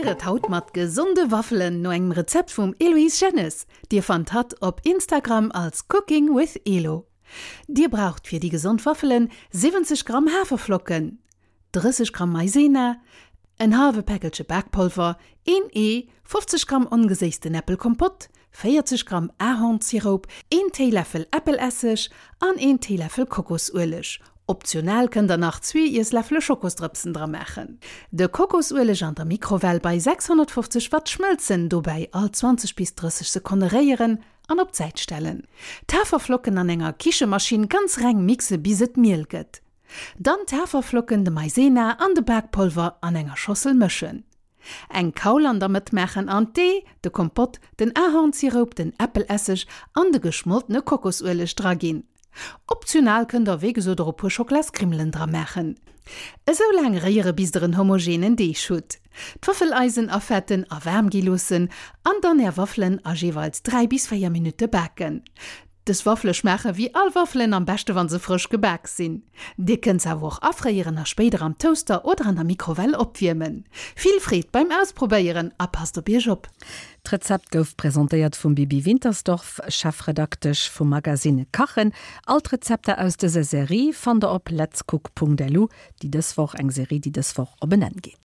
Probéier et haut mat gesonde Waffelen no engem Rezept vum Eloïse Jennes. Dir fannt hatt op Instagram als Cooking with Elo. Dir braucht fir déi gesond Waffelen 70 Gramm Haferflocken, 30 Gramm Maizena, en hallwe Päckelche Bakpolver, een Ee, 50 Gramm ongeséissten Äppelkompott, 40 Gramm Ahornsiroup, een Téiläffel Äppelesseg an een Téiläffel Kokosueleg. Optional kënnt der nach zwee Iessläffele Schokosdrëpsen dra maachen. De Kokosueleg an der Mikrowell bei 650 Watt schmëlzen, dobäi all 20 bis 30 Sekonne réieren an op d'Säit stellen. D'Haferflocken an enger Kichemaschinn ganz reng mixe bis et miel gëtt. Dann d'Haferflocken, de Maizena an de Bakpolver an enger Schossel mëschen. Eng Kaul an der Mëtt maachen an d'Ee, de Kompott, den Ahornsiroup, den Äppelesseg an de geschmoltene Kokosueleg dra ginn. Optional kënnt der wéi gesot och e puer Schocklaskrimmelen dra maachen. Esou laang réiere bis der en homogenen Deeg hutt. D'Waffeleisen afetten a waarm gi loossen an dann är Waffelen a jeeweils 3 bis 4 Minutte baken. Dës Waffele schmaache wéi all Waffelen, am beschte wann se frësch gebak sinn. Dir kënnt se awer och afréieren a spéider am Toaster oder an der Mikrowell opwiermen. Vill Freed beim Ausprobéieren a passt op iech op! D'Rezept gouf presentéiert vum Bibi Wintersdorf, Chefredaktesch vum Magazine Kachen. All d'Rezepter aus dëser Serie fannt der op letscook.lu, déi dës Woch, eng Serie déi dës Woch op en Enn geet.